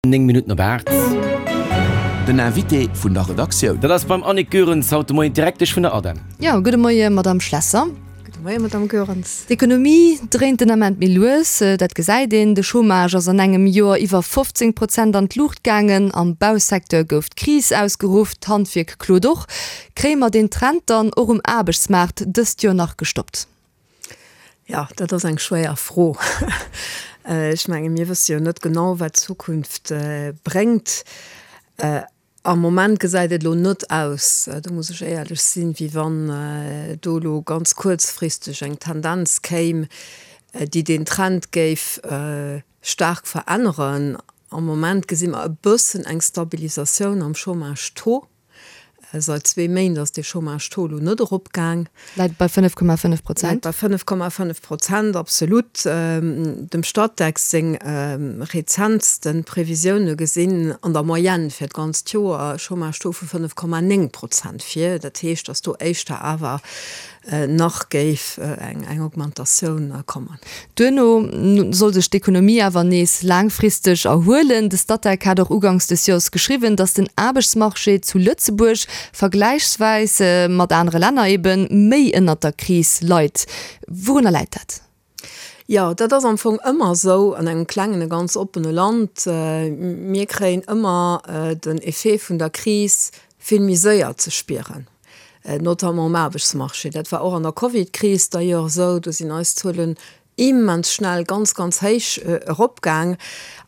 9 Minutten op 8. Den Invité vun der Redaktioun. Dat ass beim Annick Goerens haut de Moien, d'Direktesch vun der ADEM. Jo, gudde Moie Madamm Schlesser. Gudde Moie Madamm Goerens. D'Ekonomie dréint den Ament méi lues, dat gesäit een. De Chômage ass an engem Joer iwwer 15 Prozent an d'Luucht gaangen. Am Bausecteur gouf d'Kris ausgeruff, d'Handwierk klot och. Kréie mer deen Trend dann och um Aarbechtsmaart dëst Joer nach gestoppt? Jo, dat ass eng schwéier Fro. Ech menge mir wësse jo net genau, wat d'Zukunft bréngt. Am Moment gesäit et elo net aus, do muss ech éierlech sinn, wéi wann do elo ganz kuerzfristeg eng Tendenz kéim, déi deen Trend géif staark veränneren. Am Moment gesi mer e bëssen eng Stabilisatioun am Chômage-Taux. Seit zwee Méint ass dee Chômage-Taux elo net eropgaang. Läit bei 5,5 Prozent. Läit bei 5,5 Prozent, absolut. Dem Statec seng rezentste Previsioune gesinn an der Moyenne fir d'ganzt Joer e Chômage-Taux vu 5,9 Prozent vir. Dat heescht, datt do éischter awer nach géif eng Augmentatioun kommen. Duerno soll sech d'Ekonomie awer nees laangfristeg erhuelen. De Statec hat och uganks des Joers geschriwwen, datt den Aarbechtsmarché zu Lëtzebuerg vergläichsweis mat anere Länner ebe méi ënnert der Kris leit. Wourunner läit dat? Jo, dat ass am Fong ëmmer esou an engem klengen a ganz oppene Land. Mir kréien ëmmer den Effet vun der Kris vill méi séier ze spieren, notamment um Aarbechtsmarché. Dat war och an der Covidkris d'ailleurs esou, do sinn eis Zuelen immens schnell ganz, ganz héich eropgaang.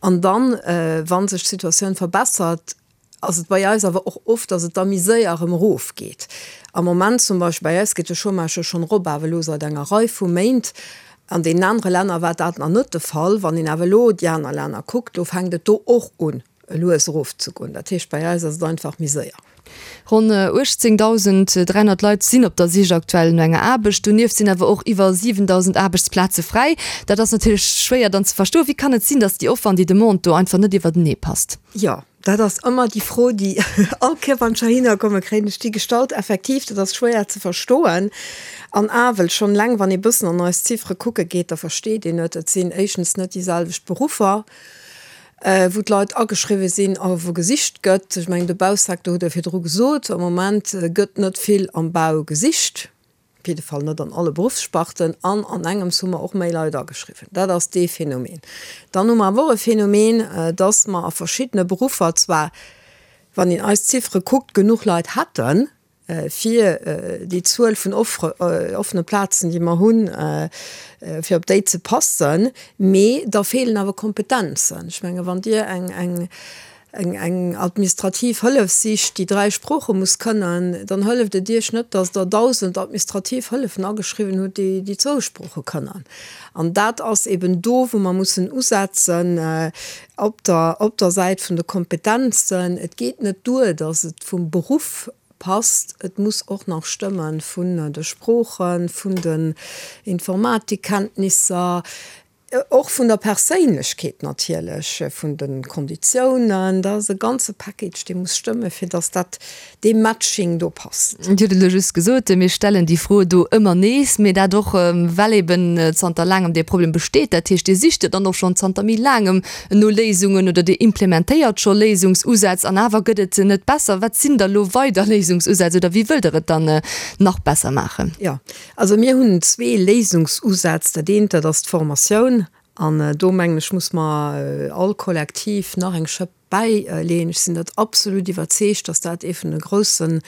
An dann, wa sech d'Situatioun verbessert, ass et bei eis awer och oft, datt et da méi séier erëm erofgeet. Am Moment zum Beispill bei eis geet de Chômage jo schonn erop, awer elo säit enger Rei vu Méint. An deenen anere Länner war dat nach net de Fall. Wann een awer elo déi aner Länner kuckt, do fänkt et do och un. lues erof ze goen. Dat heescht, bei eis ass et einfach méi séier. Ronn 18.300 Leit sinn op der Sich aktuell no enger Aarbecht. Donieft sinn awer och iwwer 7.000 Aarbechtsplaze fräi. Dat ass natierlech schwéier dann ze verstoen. Wéi kann et sinn, datt déi Offer an déi Demande do einfach net iwwertenee passt? Jo, dat ass ëmmer déi Fro, déi all Kéier, wann ech heihinner kommen, kréien ech déi gestallt. Effektiv, dat ass schwéier ze verstoen. An awel, schonn eleng wann ee bëssen an eis Ziffere kucke geet, da versteet een et. Et sinn éischtens net déi selwecht Beruffer. wou d'Leit ageschriwwe sinn a wou gesicht gëtt. Ech mengen, de Bausecteur hutt Der virdru gesot, am Moment gëtt net vill am Bau gesicht, op jidde Fall net an alle Beruffssparten. An an engems hu mer och méi Leit ageschriwwen. Dat ass dee Phänomen. Dann hu mer awer och e Phänomen, dass mer a verschiddene Beruffer zwar, wann een eis Ziffere kuckt, genuch Leit hätten, fir déi Zuel vun offene Plazen, déi mer hunn, fir op déi ze passen. Mee da feelen awer Kompetenzen. Ech menge wann Dir eng administrativ Hëllef sicht, déi 3 Sprooche muss kënnen, dann hëlleft et Iech net, datt Der 1.000 administrativ Hëllefen ageschriwwen hutt, déi zwou Sprooche kënnen. An dat ass eben do, wou mer mussen usetzen, op der, op der Säit vun de Kompetenzen. Et geet net duer, datt et vum Beruff passt, et muss och nach stëmme vun de Sproochen, vun den Informatikkenntnisser, och vun der Perséinlechkeet natierlech, vun de Konditiounen. Dat ass e ganze Package, dee muss stëmme fir datt dat, dee Matching do passt. Dir hutt et elo just gesot, mir stellen déi Fro do ëmmer nees, mee dat och well eben zanter laangem dee Problem besteet. Dat heescht, Dir sicht jo dann och schonn zanter méi laangem no Léisungen oder Dir implementéiert scho Léisungsusätz an awer gëtt et net besser. Wat sinn da lo weider Léisungsusätz oder wéi wëllt Der et dann nach besser maachen? Jo, also mir hunn zwee Léisungsusätz. Dat eent, dat ass d'Formatioun an do mengen ech, muss mer all kollektiv nach eng Schëpp bäileeën. Ech sinn dat absolut iwwerzeegt, dass dat ee vun de groussen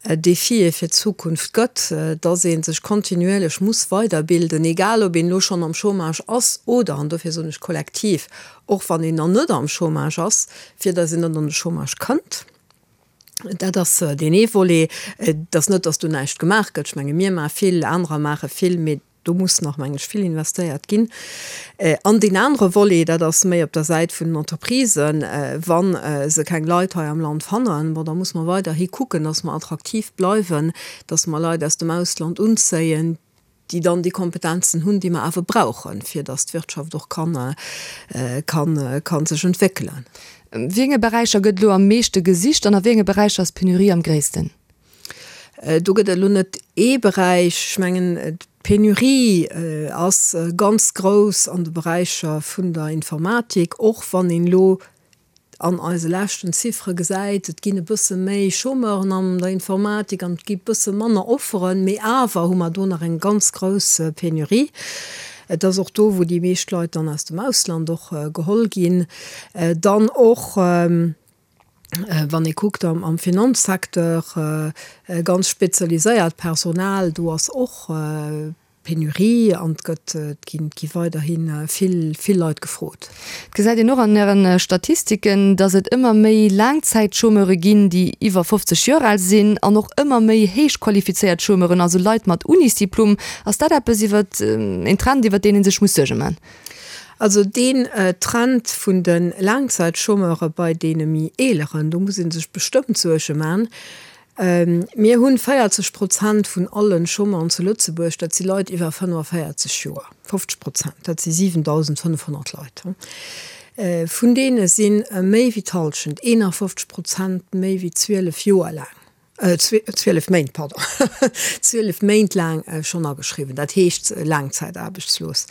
Defië fir d'Zukunft gëtt, dass ee sech kontinuierlech muss weiderbilden, egal ob een elo schonn am Chômage ass oder, an dofir soen ech kollektiv, och wann een nach net am Chômage ass, fir dass een net an de Chômage kënnt. Dat ass deen ee Volet. Et ass net, dass do näischt gemaach gëtt. Ech menge mir maache vill, anerer maache vill, mee Do muss nach, mengen ech, vill investéiert ginn. An deen anere Volet, dat ass méi op der Säit vun den Entreprisen, Wa se keng Leit hei am Land fannen, bon, da muss mer weiderhi kucken, dass mer attraktiv bleiwen, dass mer Leit aus dem Ausland unzéien, déi dann déi Kompetenzen hunn, déi mer awer brauchen, fir dass d'Wirtschaft och kann, kann, kann sech entwéckelen. Wéi enge Beräicher gëtt elo am meeschte gesicht an a wéi enge Beräicher ass d'Penurie am gréissten? Do gëtt et elo net ee Beräich. Ech mengen, d'Penurie ass ganz grouss an de Beräicher vun der Informatik, och wann een elo. an eise leschten Ziffere gesäit, et ginn e bësse méi Chômeuren an der Informatik an et gi bësse manner Offeren, mee awer hu mer do nach eng ganz grouss Penurie. Et ass och do, wou déi meescht Leit dann aus dem Ausland och geholl ginn. Dann och, wann ee kuckt am Finanzsecteur, ganz spezialiséiert Personal, do ass och Penurie an et gëtt, et ginn, et gi weiderhi vill, vill Leit gefrot. Et gesäit een och an Ären Statistiken, datt et ëmmer méi Laangzäitchômeure ginn, déi iwwer 50 Joer al sinn an och ëmmer méi héich qualifizéiert Chômeuren, also Leit mat Unisdiplom. Ass dat eppes iwwer, een Trend iwwer deen ee sech muss Suerge man? Also deen Trend vun de Laangzäitchômeure bei deene méi Eeleren, do muss ee sech bestëmmt Suerge man. Mir hunn 40 Prozent vun alle Chômeuren zu Lëtzebuerg, dat si Leit iwwer 45 Joer, 50 Prozent, dat si 7.500 Leit. Vun deene si méi wéi d'Hallschent, 51 Prozent, méi wéi 12 Joer laang, 12 Méint, pardon, 12 Méint laang schonn ageschriwwen, dat heescht laangzäitaarbechtslos.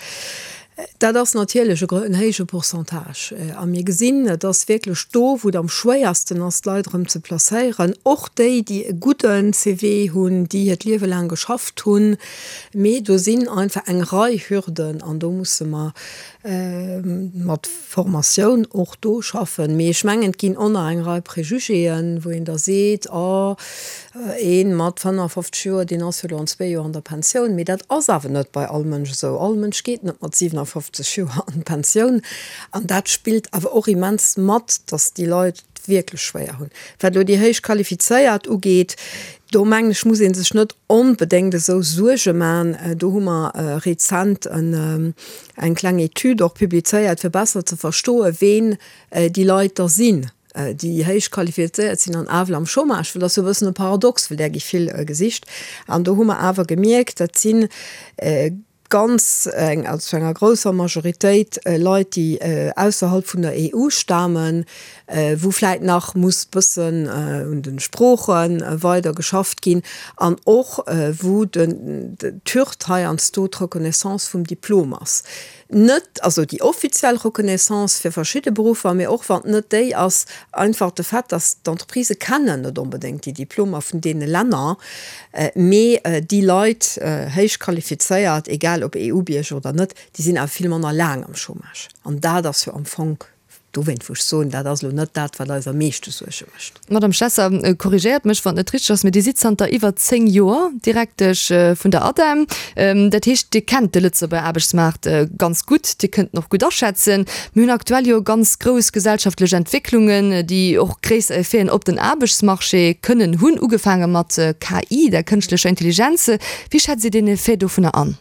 Dat ass natierlech en héije Pourcentage. A mir gesinn, et ass wierklech do, wou et am schwéiersten ass, d'Leit erëm ze placéieren, och déi, déi e gudde CV hunn, déi hiert Liewe laang geschafft hunn. Mee do sinn einfach eng Rei Hürden an do musse mer mat Formatioun och do schaffen. Mee ech mengen, et ginn och nach eng Rei Prejugéen, wou een da seet, Oh, ee mat 55 Joer, deen ass jo elo an zwee Joer an der Pensioun. Mee dat ass awer net bei all Mënsch esou. All Mënsch geet net mat 57 Joer an d'Pensioun. An dat spillt awer och immens mat, datt déi Leit et wierklech schwéier hunn. Wat elo déi héich Qualifizéiert ugeet, do mengen ech, muss ee sech net onbedéngt esou Suerge man. Do hu mer rezent en eng kleng Etüd och publizéiert, fir besser ze verstoen, ween déi Leit da sinn, déi héich qualifizéiert sinn an awer am Chômage, well dat ass jo e bëssen e Paradox, well där gi vill gesicht. An do hu mer awer gemierkt, dat si ganz eng, also zu enger grousser Majoritéit Leit, déi ausserhalb vun der EU stamen, wou vläit nach muss bëssen un de Sprooche weider geschafft ginn an och wou d'Hürd heiansdo d'Reconnaissance vum Diplom ass. Net also déi offiziell Reconnaissance fir verschidde Beruffer, mee och wann et net déi ass, einfach de Fait, dass d'Entreprisë kennen net onbedéngt déi Diplomer vun deene Länner, mee déi Leit, héich qualifizéiert, egal ob EU-Bierger oder net, déi sinn awer vill manner laang am Chômage. An dat ass jo am Fong Dowéint wou ech soen, dat ass elo net dat, wat eis am meeschte Suerge mécht. Madame Schlesser, korrigéiert mech, wann et net richteg ass, mee Dir sidd zanter iwwer 10 Joer Direktesch vun der ADEM. Dat heescht, Dir kennt de Lëtzebuerger Aarbechtsmaart ganz gutt, Dir kënnt en och gutt aschätzen. Mir hunn aktuell jo ganz grouss gesellschaftlech Entwécklungen, déi och gréisser Effeten op den Aarbechtsmarché kënnen hunn, ugefaange mat KI, der kënschtlecher Intelligenz. Wéi schätzt Dir deen Effet dovunner an?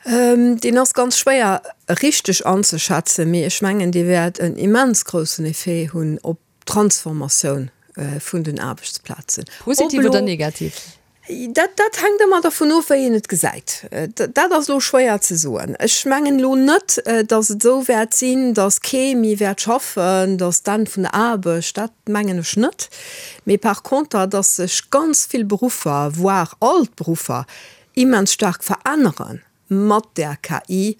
Deen ass ganz schwéier richteg anzeschätzen, mee ech mengen, dee wäert en immens groussen Effet hunn op d'Transformatioun vun den Aarbechtsplazen. Positiv oder negativ? Dat, dat hänkt ëmmer dervun of, wéi een et gesäit. Dat ass elo schwéier ze soen. Ech mengen elo net, datt et esou wäert sinn, datt kee méi wäert schaffen, datt d'Enn vun der Aarbecht, dat mengen ech net. Mee par conter, datt sech ganz vill Beruffer, voire all d'Beruffer, immens staark verännere mat där KI,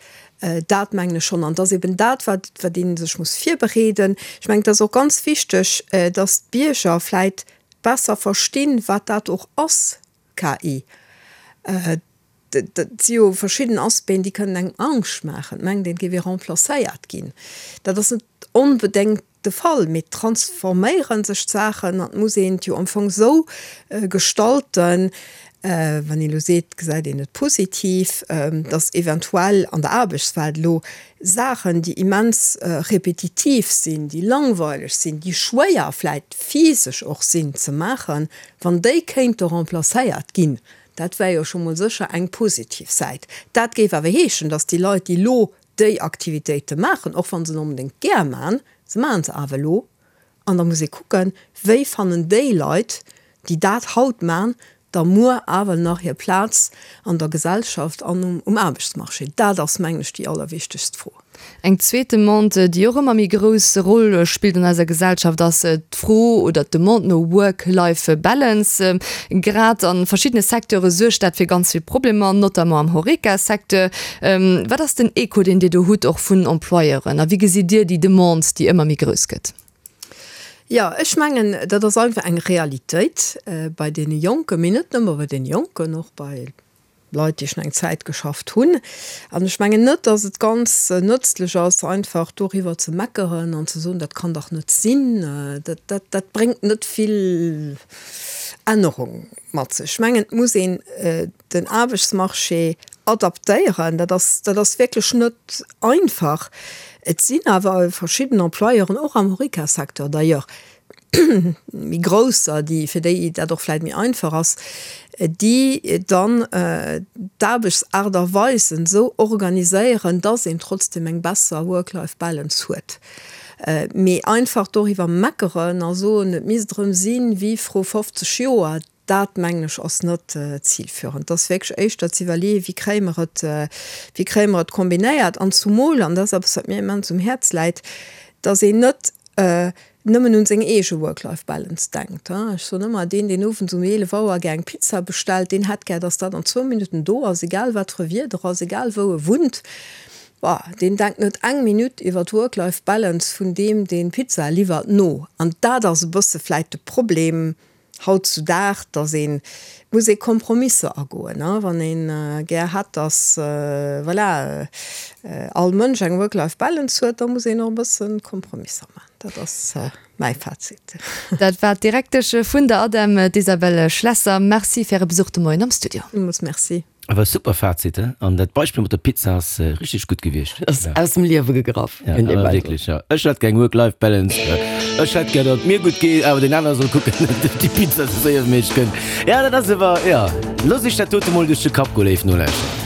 dat mengen ech schonn. An et ass eben dat, wat wat ee sech muss virbereeden. Ech mengen, et ass och ganz wichteg, datt d'Bierger vläit besser verstinn, wat dat och ass, KI. Et si jo verschidden Aspecten, déi kënnen engem Angscht maachen. Et mengt een, et géif ee remplacéiert ginn. Dat ass net onbedéngt de Fall, mee et transforméiere sech d'Saachen an et muss een et jo am Fong esou gestalten, wann een elo seet, gesäit een et positiv, datt eventuell an der Aarbechtswelt elo Saachen, déi immens repetitiv sinn, déi langweileg sinn, déi schwéier vläit physesch och sinn ze maachen, wann déi kéinte remplacéiert ginn, dat wär jo scho mol sécher eng positiv Säit. Dat géif awer heeschen, datt déi Leit, déi elo déi Aktivitéite maachen, och wa se net onbedéngt gär man, se maachen se awer elo, an da muss ee kucken, wéi fannen déi Leit, déi dat haut man, da muer awer nach hir Plaz an der Gesellschaft an um Aarbechtsmarché? Dat ass, mengen ech, déi allerwichtegst Fro. Eng zweet Demande, déi och ëmmer méi grouss Roll spillt an eiser Gesellschaft, ass d'Fro oder d'Demande no Work-Life-Balance. Grad a verschiddene Secteure suergt dat fir ganz vill Problemer, notamment am Horeca-Secteur. Wat ass den Echo, deen Dir do hutt, och vun Employeuren? A wéi gesitt Dir déi Demande, déi ëmmer méi grouss gëtt? Jo, ech mengen, dat ass einfach eng Realitéit bei deene Jonken, mee net nëmme bei deene Jonken, och bei Leit, déi schon eng Zäit geschafft hunn. An ech mengen net, dass et ganz nëtzlech ass, einfach doriwwer ze meckeren an ze soen, dat kann dach net sinn. Dat, dat, dat bréngt net vill Ännerung mat sech. Ech mengen, et muss een den Aarbechtsmarché adaptéieren. Dat ass, dat ass wierklech net einfach. Et sinn awer verschidden Employeuren, och am Horeca-Secteur d'ailleurs, méi grousser, déi, fir déi dat och vläit méi einfach ass, déi dann d'Aarbechtsaart a Weisen esou organiséieren, dass een trotzdem eng besser Work-Life-Balance huet. Mee einfach doriwwer meckeren a soen, et misst erëm sinn wéi vru 50 Joer, dat mengen ech ass net zilführend. Et ass wierklech éischter ze iwwerleeën, wéi kréie mer et, wéi kréie mer et kombinéiert an zumol, an dat ass eppes wat mir immens um Häerz läit, dass een net nëmmen un seng eege Work-Life-Balance denkt. Ech soen ëmmer, deen, deen owends um 11 Auer gär eng Pizza bestellt, deen hätt gär, dass dat an zwou Minutten do ass, egal wat fir e Wieder ass, egal wou e wunnt. Bah, deen denkt net eng Minutt iwwer d'Work-Life-Balance vun deem, deen d'Pizza liwwert, no. An dat ass e bësse vläit de Problem hautzudag, dass ee muss ee Kompromisser agoen, wann ee gär hätt, dass, voilà, all Mënsch eng Work-Life-Balance huet, da muss een och e bësse Kompromisser maachen. Dat ass mäi Fazit. Dat war d'Direktesch vun der ADEM, d'Isabelle Schlesser. Merci fir Äre Besuch de Moien am Studio. Villmools Merci. Awer super Fazit, he? An dat Beispill mat der Pizza ass richteg gutt gewiescht. Ass aus dem Liewe gegraff. Ja, awer wierklech, ja. Ech hätt gär eng Work-Life-Balance. Ech hätt gär, datt et mir gutt geet, awer deen anere soll kucken, datt déi Pizza sou séier wéi méiglech kënnt. Ja, dat ass awer, ja. Loosst iech dat dote mol duerch de Kapp goen, léif Nolauschterer.